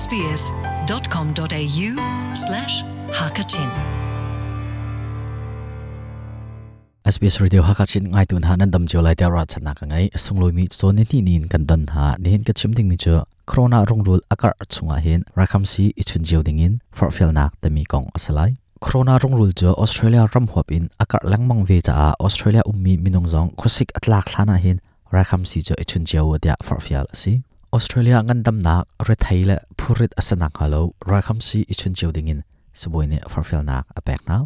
sbs.com.au slash hakachin. SBS Radio Hakachin ngai tun ha nan dam chiu lai tia ra chana ka ngai sungloi mi chon ni ni nin kan don ha ni hin ka chim ding mi chu corona rongrul akar chunga hin rakham si ichun jiu ding in for fel nak te mi kong asalai corona rongrul chu Australia ram huap in akar langmang ve cha a Australia ummi minung zong khosik atlak thlana hin rakham si chu ichun jiu dia for fel si Australia ngan dam nak re thaile phurit asanak halo rakham si ichun jiu ding in saboine for fel nak apek na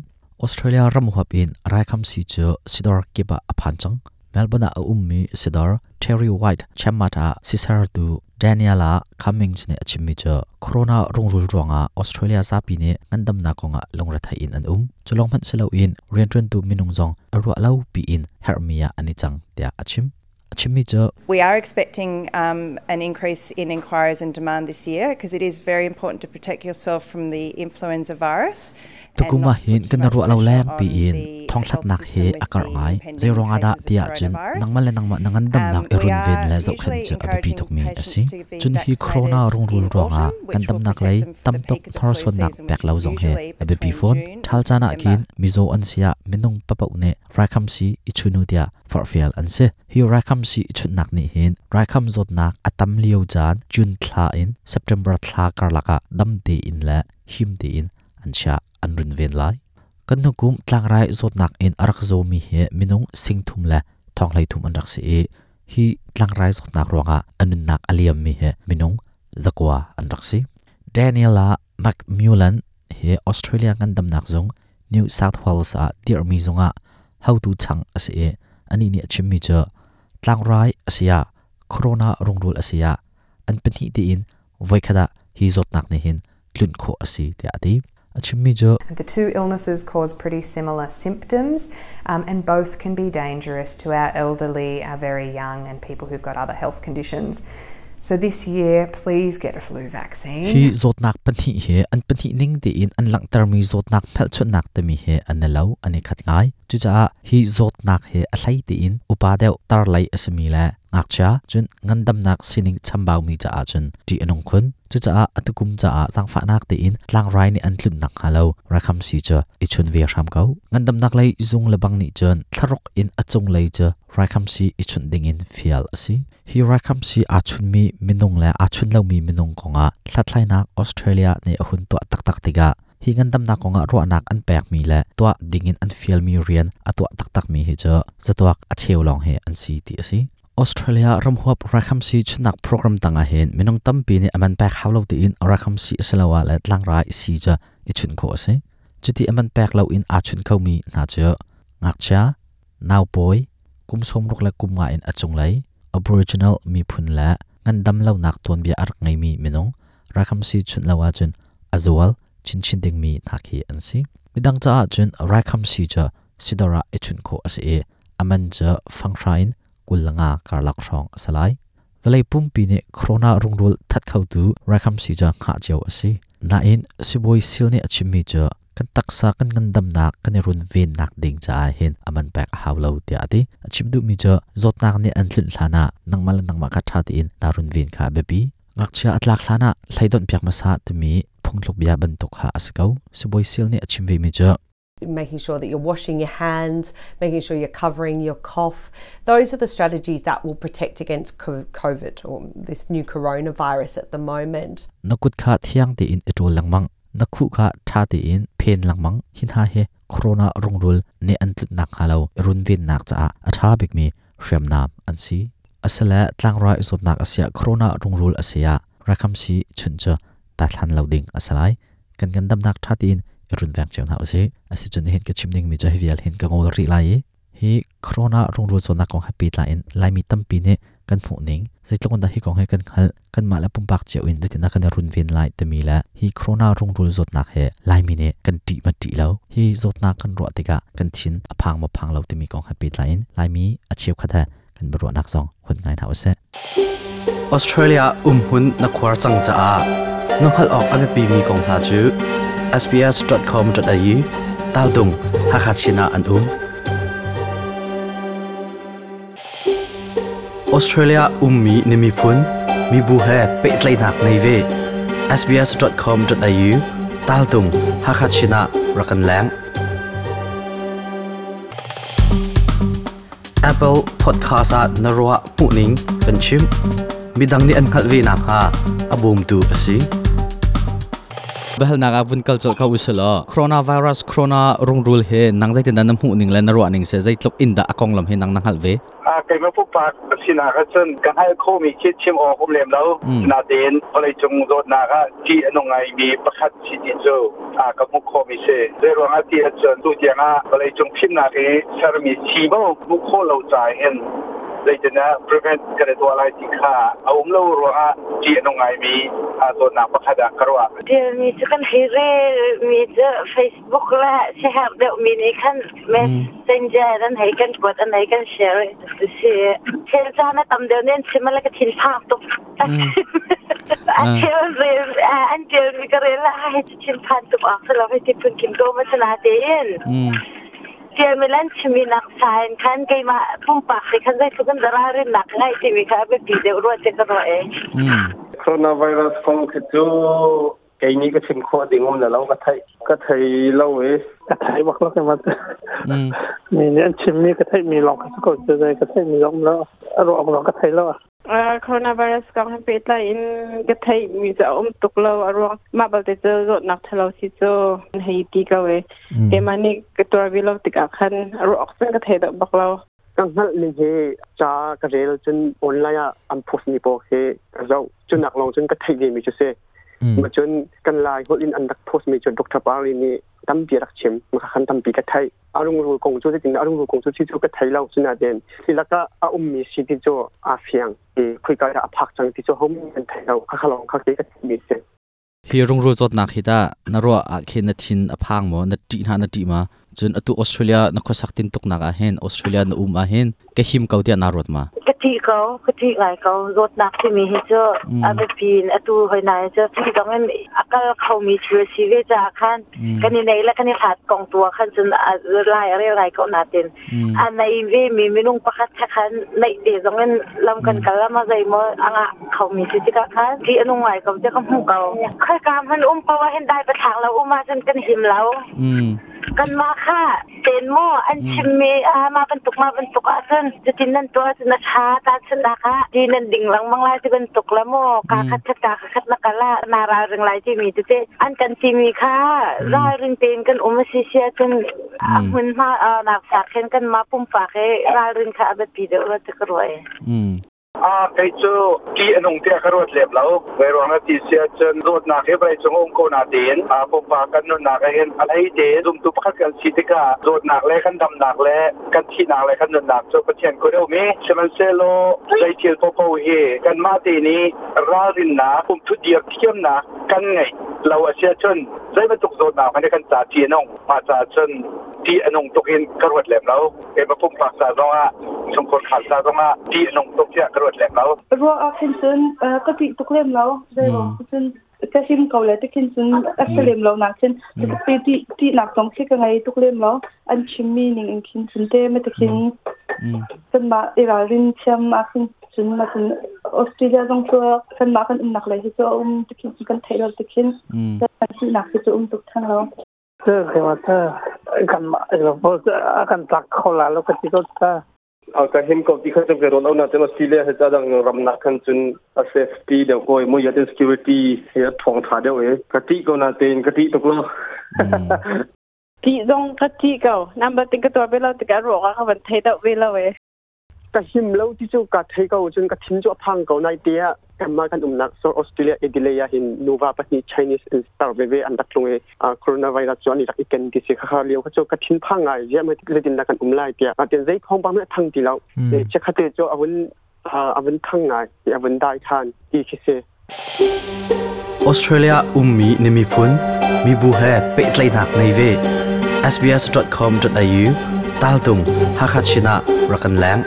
Australia ram huap in raikham si chu sidor kiba aphan chang Melbourne a ummi sidor Terry White Chamata sisar tu Daniela Cummings ne achimmi chu corona rongrul ronga Australia zapi ne ngandam na konga longra thai in an cholong man selo in rian tu minung zong arwa lo pi in hermia ani chang tia achim achimmi chu We are expecting an increase in inquiries and demand this year because it is very important to protect yourself from the influenza virus. Tukuma hin kan ru lo lem pi in thong thlat nak he akar ngai zerong ada tia chun nangma le nangma nangan dam nak erun ven le zau khan chu abipi thok mi asi chun hi corona rong rul ronga kan dam nak lei tam tok thor son nak pek lo zong he abipi phone thal chana kin mizo an sia minung papau ne rakham si ichunu tia for fial an se hi rakham si ichun nak ni hin rakham zot nak atam lio chan jun thla in September thla karlaka dam te in la him te in an sha an run ven lai kan hukum tlangrai zot nak in arak zo mi he minung singthum la thonglai thum an rak se e hi tlangrai zot nak ronga anun nak aliam mi he minung zakwa an rak si Daniela McMullen he Australia ngan dam nak zong New South Wales a dir mi zonga how to chang ase e ani ni achim mi cha tlangrai asia corona rongrul asia an panhi te in voikhada hi zot nak ne hin tlun kho asi te ati achimmi jo The two illnesses cause pretty similar symptoms, and both can be dangerous to our elderly, our very young, and people who've got other health conditions. So this year, please get a flu vaccine. Hi zot nak panhi he an panhi ning te in an lang ter mi zot nak phel chun nak te mi he an lo ani khat ngai chu cha hi zot nak he a thlai te in upa deuh tar lai asmi la ngak cha chun ngandam nak sining chambau mi cha a chun ti anong khun chu cha atukum cha a changfa nak te in tlang rai ni an tlun nak halo rakham si cha i chun ve ram kau ngandam nak lai zung lebang ni chun tharok in achung lai cha rakham si i chun ding in fial asi hi rakham si a chun mi minung la a chun lo mi minung konga thlatlai nak Australia ne ahun to tak tak tiga hi ngandam nak konga ro nak an pek mi la to ding in an fial mi rian atwa tak tak mi hi cha zatwak a cheu long he an si ti asi Australia ramhuap rakham si chunak program tanga hen minung tampi ni aman pek hawlo ti in rakham si asalawa la tlangrai si cha ichun kho ase chuti aman pek lo in a chun kho mi na cha ngakcha naw poi kumsom rok la kumnga in achung lai Aboriginal mi phun la ngandam lo nak ton bia arak ngai mi minung rakham si chun lawa chun azual chin chin ding mi nakhi an si midang cha chun rakham si cha sidora ichun kho ase e aman cha fangthrain kulanga karlak rong asalai velai pumpi ne corona rungrul that khau tu rakham si cha kha cheu ase na in siboi sil ne achimi cha kan taksa kan ngandam nak kan run ven nak ding cha hin aman pek hawlo tia ati achim du mi cha zot nak ne an thlun thlana nangmal nangma kha tha ti in tarun ven kha bepi ngakcha atlak thlana thlaidon piak ma sa timi phungthluk bia ban tok kha asakau siboi sil ne achim ve mi cha making sure that you're washing your hands, making sure you're covering your cough. Those are the strategies that will protect against COVID or this new coronavirus at the moment. Nakut kha thiang te in etol langmang, nakhu kha tha te in phen langmang, hin ha he corona rongrul ne antlut nak halo run vin nak cha a tha bik mi hriam nam an si. Asala tlangrai zot nak asia corona rongrul asia rakham si chuncha ta thlan loading asalai kan kan dam nak tha te in run vang cheu na ase ase chun hin ka chimning mi cha hial hin ka ngol ri lai hi corona rongrul chona kong happy la in lai mi tampi ne kan phu ning zeitlong da hi kong he kan khal kan ma la pumpak cheu in zetina kan run vin lai te mi la hi corona rongrul zot nak he lai mi ne kan ti ma ti lo hi zot na kan ro tika kan chin aphang ma phang lo te mi kong happy la in lai mi acheu khatha kan bro nak song khun ngai na ase Australia umhun na khwar chang cha a nokhal ok ame pi mi kong hla chu sbs.com.au taldung hakachina an Australia ummi nimi phun mi bu he petlai nak nei ve sbs.com.au taltung Hakachina rakan lang. Apple Podcast ah na ruah hmuhning kan chim. Midang nih an hngalh ve nakhnga a bawmtu a si. Bahal naga vun kal chol ka usalo coronavirus, corona rungrul he nang zaitin dan na hmuh ning le na ruah ning se, zeitluk in da akong lam he nang na hngal ve? A keima pupak sinak ahcun ka hngal khomi khi chim awk um lem lo. Natein vawlei cung zawtnak ah ṭih a nung ngaimi pakhat si ti cu a ka hmuh khawhmi si. Zeiruang ah ti ahcun tu tiang ah vawlei cung fimnak i sermi sii mo hmuh khawh lo ca hin zeitindah prevent kan i tuah lai ti kha a um lo ruangah ṭih a nung ngaimi zawtnak pakhat ah ka ruah. Mi cu kan hei rel mi cu Facebook le siaherh deuh mi nih khan messenger an hei kan kuat, an hei kan share si. Thil caan a tam deuh nen chim le ka thin phang tuk. A thil rel an tial mi ka rel la hei thin phan tuk ak selo hei ti phun kim ko ma sana tein. Tial mi lan chimi nak sain khan keimah pumpak te khan zeitluk in dara rin nak ngai timi kha a biapi deuh rua te ka ruah e. Coronavirus kong khi cu kei nih ka chim khawh ding um na lo, ka thei ka thei lo e. Ka thei bak lo ke mat. Mi nih an chim mi ka theih mi lawng ka ko cu, zei ka theih mi zong lo, a ruak lawng ka thei lo. Coronavirus kong he pehtlai in ka theih mi cu a um tuk lo. A ruang mah balte cu zawtnak ṭhalo si cu hei ti ko e. Keimah nih ka tuar ve lo tikah khan a ruak cun ka thei deuh bak lo. Ka hngalh ning hi ca ka rel, cun online ah an post mi pawl khi ka zoh, cunak lawng cun ka theih ve mi cu si. Ma cun kan Lai holh in an rak post mi cu Dr. Pari nih tampi rak chim ma khan tampi ka theih. Arungrul kong cu zeitin arungrul kong cu thi cu ka thei lo, cunaten silaka a ummi si ti cu a fiang i khuika dah a phak cang ti cu hom kan thei lo, kha khalong kha ke ka mi si. Hi rungrul zawtnak hi ta na ruah ah khin na thin a phang maw, na ṭih hna, na ṭih ma? Cun atu Australia na khuasak tin tuk nak ah hin, Australia na um ah hin ka him ko tiah naa ruat ma? Ka ṭih ko, ka ṭih ngai ko. Zawtnak timi hi cu a biapi in atu hoi nai cu ti zong in a kal khomi thil a si ve caah khan kan i nei le kan i hlat kong tu ah khan cun a lai a rel ngai ko. Natin a nei ve mi minung pakhat kha khan neih te zong in lam kan kal ama zeimaw a ngah khomi si tikah khan ṭih a nung ngai ko tiah ka hmuh ko. Khoika hman um poah hin dai pathlak lo um ahcun kan him lo. Kanmah kha ten maw an chimmi a mah bantuk mah bantuk ahcun cutin nan tuah cun a ṭha, tahchunhnak ah ti nan ding lengmang lai ti bantuk la maw, kaa khat khat kaa khat na kal ah naa ralring lai timi tete an kan timi kha ralring tein kan um a si si ahcun a hmunhma nak sak khin kanmah pumpak i ralring kha a biapi deuh rua ti ka ruah e. A kei cu ṭih a nung tiah ka ruat lem lo. Zeiruang ah ti si ahcun zawtnak hi vawlei cung um ko natein pumpak kan nunnak ah hin a hlei te zumtu pakhat kan si tikah zawtnak le kan damnak le kan thihnak le kan nunnak cu Pathian kut a um i, sihmanhsehlaw zei thil paohpaoh hi kanmah te nih ralrinnak, umthut dir thiamnak kan ngeih lo a si ahcun zei bantuk zawtnak hmanh hi kan ca ṭih a nung. Mah caah cun ṭih a nung tuk in ka ruat lem lo. Keimah pumpak ca zong ah, chungkhar khal ca zong ah ṭih a nung tuk tiah ka ruat lem lo. Ruah ah khin cun ka ṭih tuk lem lo. Zeiruang cun ka him ko le tikhin cun a si lem lo nak cun ti ṭihnak zong khi ka ngei tuk lem lo. An chimmi ning in khin cun te ma tikhin kanmah i ralrin thiam ah khin cun ma cun Australia zong cu kanmah kan umnak lei hi cu a um tikhin cun kan theih lo tikhin kan ṭihnak hi cu um tuk theng lo. Kan tlak kho la lo ka ti ko ta. Ka him ko ti kha chu ke ron au na ten Australia he cha dang ram na khan chun a safety deuh ko mo yatin security he thong tha deuh e, ka ti ko na ten ka ti tuk lo. Ti zong ka ti ko number tin ka tuar ve lo tikah ruak ah ka van thei deuh ve lo e. Ka him lo ti cu ka thei ko, cun ka thin cu a phang ko. Nai te ah kanmah kan umnak so Australia Adelaide ah hin nuva pahnih Chinese in star veve an rak tlung i coronavirus cu an i rak i ken ti si. Kha lio kha cu ka thin phang ngai, ziah mai zeitin dah kan um lai tiah. Atin zei thawngpang hmanh a thang ti lo. Chiakhate cu a vun thang ngai, a vun dai than ti khi si. Australia ummi na miphun mibu he pehtlaihnak ngei ve. sbs.com.au taltung Hakachin ah rak kan leng.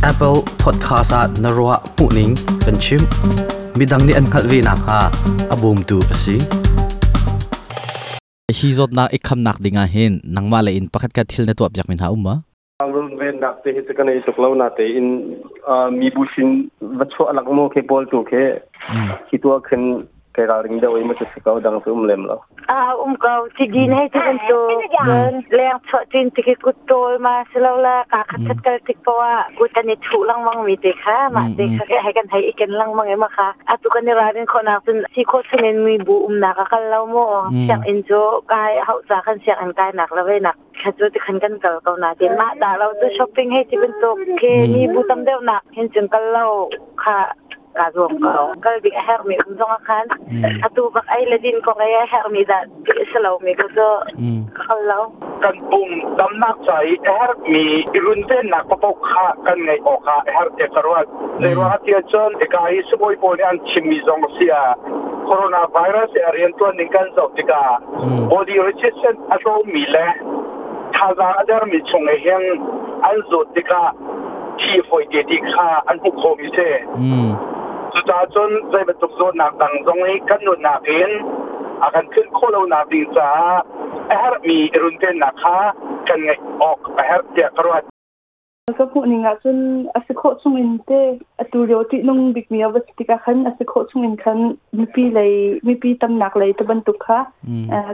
Apple Podcast ah na ruah hmuhning kan chim. Midang nih an hngalh ve nakhnga a bawmtu a si. Hi zawtnak i khamnak ding ah hin nangmah le in pakhat khat thil na tuah piak mi hna um ma? Runvennak te hi cu ka nei tuk lo na tein mibu sin va chuah lak mu khi pawl tu khi khi tuah khin kai ralring deuh i ma cu si ko dang cu um lem lo. A um ko ti din hei ti bantuk cun leng chuah tin ti khi kut tawl ma si lo la ka khat khat kal tik poah kut an i thuh lengmang mi te kha mah te kha hei kan hei i ken lengmang i ma kha atu kan i ralrin khawhnak cun si khawh chungin mi bu umnak a kal lo mu sianginn cu kai hauh ca kan sianginn kai nak le ve nak kha cu ti khan kan kal ko na tin mah dah lo cu shopping hei ti bantuk khi mi bu tam deuh nak hin cun kal lo kha ka zuam ko kal ding a herhmi um zong ah khan atu bak ei le din kong ei a herhmi dah ti a si lomi ko cu ka kal lo. Kan pum damnak ca i a herhmi i runvennak paoh kha kan ngeih awk ah a herh tiah ka ruat. Zeiruang ah tiah cun hika hi sibawi pawl nih an chimmi zong a si ah coronavirus i a riantuan ning kan zoh tikah body resistance a tlawmmi le thazaang a dermi chung i hin an zawt tikah thi fawi te ti kha an hmuh khawhmi si. Cucaah cun zei bantuk zawtnak dang zong hi kan nunnak in a kan tlunh khawh lonak ding caah a herhmi i runvennak kha kan ngeih awk a herh tiah ka ruat. Ka hmuh ning ahcun a si khawh chung in te atu lio ṭihnung bikmi a va si tikah khan a si khawh chung in khan mipi lei mipi tamnak lei te bantuk kha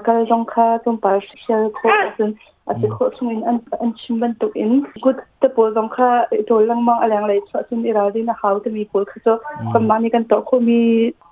kal zong kha tlawmpal hrial khawh ahcun a si khawh chung in an chim bantuk in kut te pawl zong kha i ṭawl lengmang a lenglei chuah cun i ralrin a hau timi pawl kha cu kanmah nih kan tuah khawhmi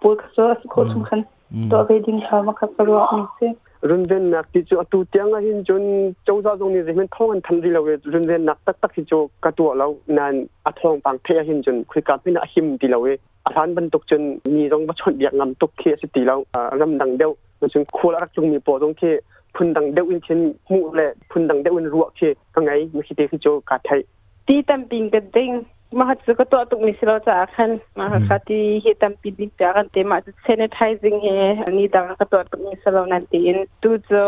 pawl kha cu a si khawh chung khan tuah ve ding kha makha ka ruah mi si. Runvennak ti cu atu tiang ah hin cun cozah zong nih zeihmanh thawng an thanh rih lo i runvennak taktak hi cu ka tuah lo nain a thawngpang theih ah hin cun khoika hmanh ah a him ti lo i a hlan bantuk cun mi zong va chawnhbiak ngam tuk khi a si ti lo. Ramdang deuh cun khual a rak tlungmi pawl zong khi phundang deuh in khin hmuh le phundang deuh in ruah khi ka ngei mi khi te khi cu kaa theih. Ti tampi in ka ding. Mah cu ka tuah tukmi si lo caah khan mah kha ti hi tampi ding tiah kan te mah cu sanitizing hi ni dang ka tuah tukmi si lo nan tiin tu cu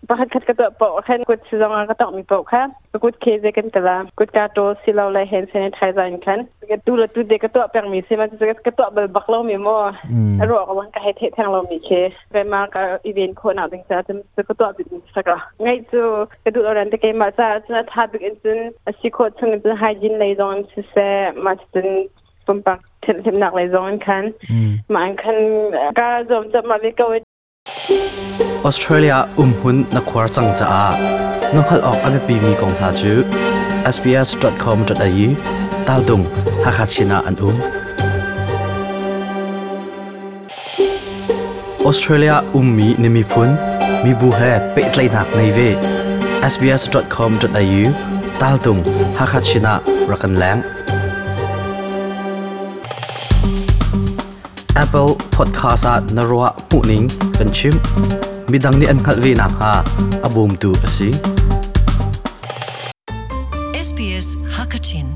pakhat khat ka tuah paoh khan kut si zong ah ka tawkmi paoh kha ka kut khe ze kan tala kut ka ṭawl si lo le hand sanitizer in khan tu le tu te ka tuah pengmi si ma ka tuah bal bak lo mi maw a ruah ka ka hei theih theng lo mi khi ma ka i ven khawh nak ding ca cun ka tuah bik mi saka ngai cu ka duh lo ran te keimah ca cun a tha bik in cun a si khawh chung in cun hygiene lei zong in siseh ma cun pumpak thianhhlimnak lei zong in khan ma in khan ka zuam chap ma ve ko. Australia umhmun na khuar cang caah na hngalh awk a biapimi kong hna cu sbs.com.au taldung Hakha Chin ah an um. Australia ummi na miphun, mibu he pehtlaihnak ngei ve. sbs.com.au taltung Hakha Chin ah rak kan leng. Apple Podcast ah na ruah hmuhning kan chimh. Midang nih an hngalh ve nakhnga a bawmtu a si. SBS Hakachin.